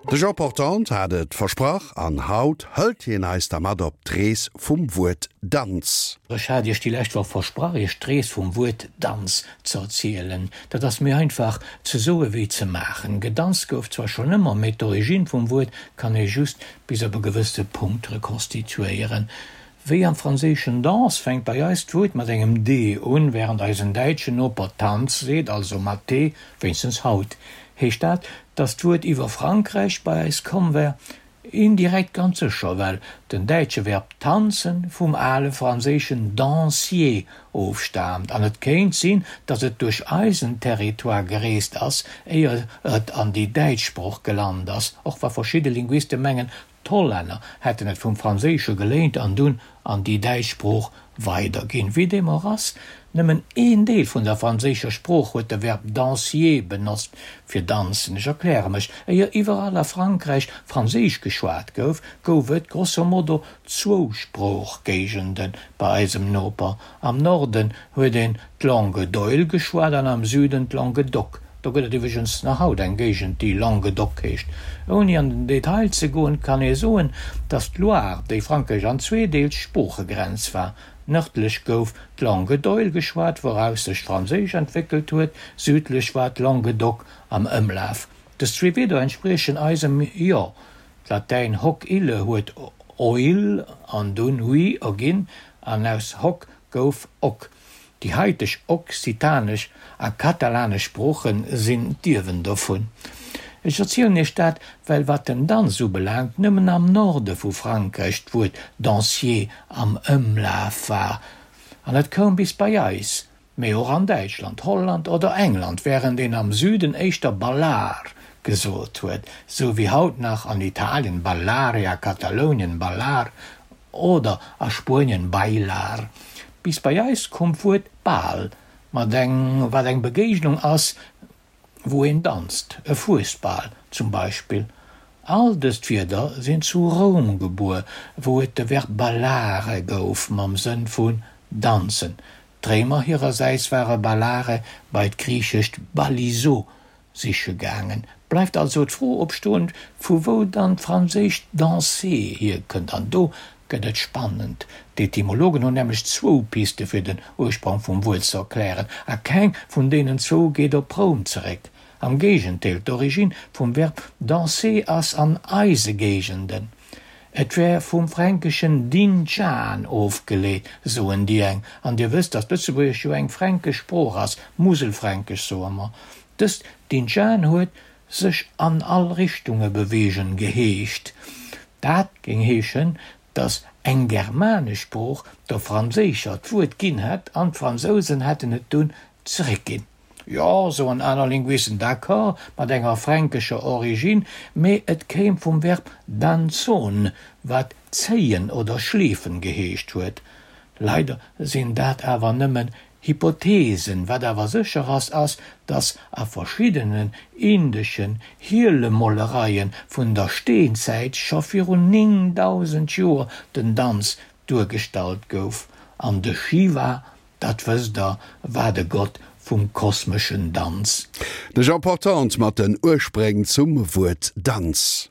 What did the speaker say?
De Jean Portante hat et versprach an haut hëlt hien eis da mat op d'Rees vum Wuert Danz. Ech hat Iech déi lescht Woch versprach, Iech d'Rees vum Wuert Danz ze erzielen. Dat ass méi einfach ze soe wéi ze maachen. Gedanzt gouf zwar schonn ëmmer, mee d'Origine vum Wuert kann ee just bis op e gewësse Punkt rekonstituéieren. Wéi am Franséischen danse fänkt bei eis d'Wuert mat engem d un, wärend eisen däitschen Noper Tanz seet, also mat t, wéinstens haut. Heescht dat, datt d'Wuert iwwer Frankräich bei eis komm wär? Indirekt ganz sécher, well den däitsche Verb tanzen vum ale franséischen dansier ofstaamt an et kéint sinn, datt et duerch eisen Territoire gereest ass, éier et an déi däitsch Sprooch gelant ass, och wa verschidde Linguiste mengen, D'Hollänner hätten et vum Franséische geléint an dunn an déi däitsch Sprooch weiderginn. Wéi deem och ass, nëmmen een Deel vun der franséischer Sprooch huet de Verb dansier benotzt fir danzen. Ech erkläre mech, Éier iwwerall a Frankräich Franséisch geschwat gouf, gouf et grosso modo zwou Sproochgéigende bei eisem Noper. Am Norden huet een d'Langue d'oïl geschwat an am Süden d'Langue d'oc. Do gëtt et iwwregens nach haut eng Géigend, déi Langue d'oc heescht. Ouni an den Detail ze goen, kann ee soen, datt d'Loire, déi Frankräich an zwee deelt, Sproochegrenz war. Nërdlech gouf d'Langue d'oïl geschwat, wouraus sech d'Franséisch entwéckelt huet, südlech war d'Langue d'oc am Ëmlaf. Dës zwee Wierder entspriechen eisem jo. D'Latäin hoc ille huet oil an dunn hui erginn, an aus hoc gouf oc. Déi haiteg okzitanesch a katalanesch Sprooche sinn d'Ierwen dovun. Ech erzielen iech dat, well wat den Danz ubelaangt, nëmmen am Norde vu Frankräich d'Wuert dansier am Ëmlaf war, an et koum bis bei eis, mee och an Däitschland, Holland oder England, wärend een am Süden éischter ballar gesot huet, sou wéi haut nach an Italien ballare, a Katalounien ballar Oder a Spuenien bailar. Bis bei eis koum d'Wuert Bal, mat eng, wat eng Begéignung ass, wou een danzt, e Fuesbal zum Beispill. All dëst Wierder sinn zu Roum gebuer, wou et de Verb ballare gouf mam Sënn vun danzen. D'Réimer hirersäits ware ballare bei d'griichescht ballizo siche gaangen. Bleift also d'Fro opstoen, vu wou dann d'franséischt danser hierkënnt. An do gëtt et spannend. D'Etymologen hunn nämlech zwou Piste fir den Ursprong vum Wuert ze erklären, a keng vun deenen zwou geet op Roum zeréck. Am Géigendeel, d'Origine vum Verb danser ass an eise Géigenden. Et wär vum fränkeschen dinjan ofgeleet, soen déi eng. An Dir wësst, datt Lëtzebuergesch jo eng fränkesch Sprooch ass, Muselfränkesch soe mer. Dëst dinjan huet sech an all Richtunge beweegen geheescht. Dat géing heeschen, datt eng germanesch Sprooch der franséischer d'Wuert ginn hätt an d'Fransousen hätten et dunn zeréckginn. Jo, soen aner Linguisten, d'accord mat enger fränkescher Origine, mee et kéim vum Verb danzon, wat zéien oder schleefen geheescht huet. Leider sinn dat awer nëmmen Hypothesen. Wat awer sécher ass, ass, dass a verschiddenen indeschen Hielemolereie vun der Steenzäit scho virun 9000 Joer den Danz duergestallt gouf, an de Shiva Dat wësst der, war de Gott vum kosmeschen Danz. De Jean Portante mat den Urspréng zum Wuert Danz.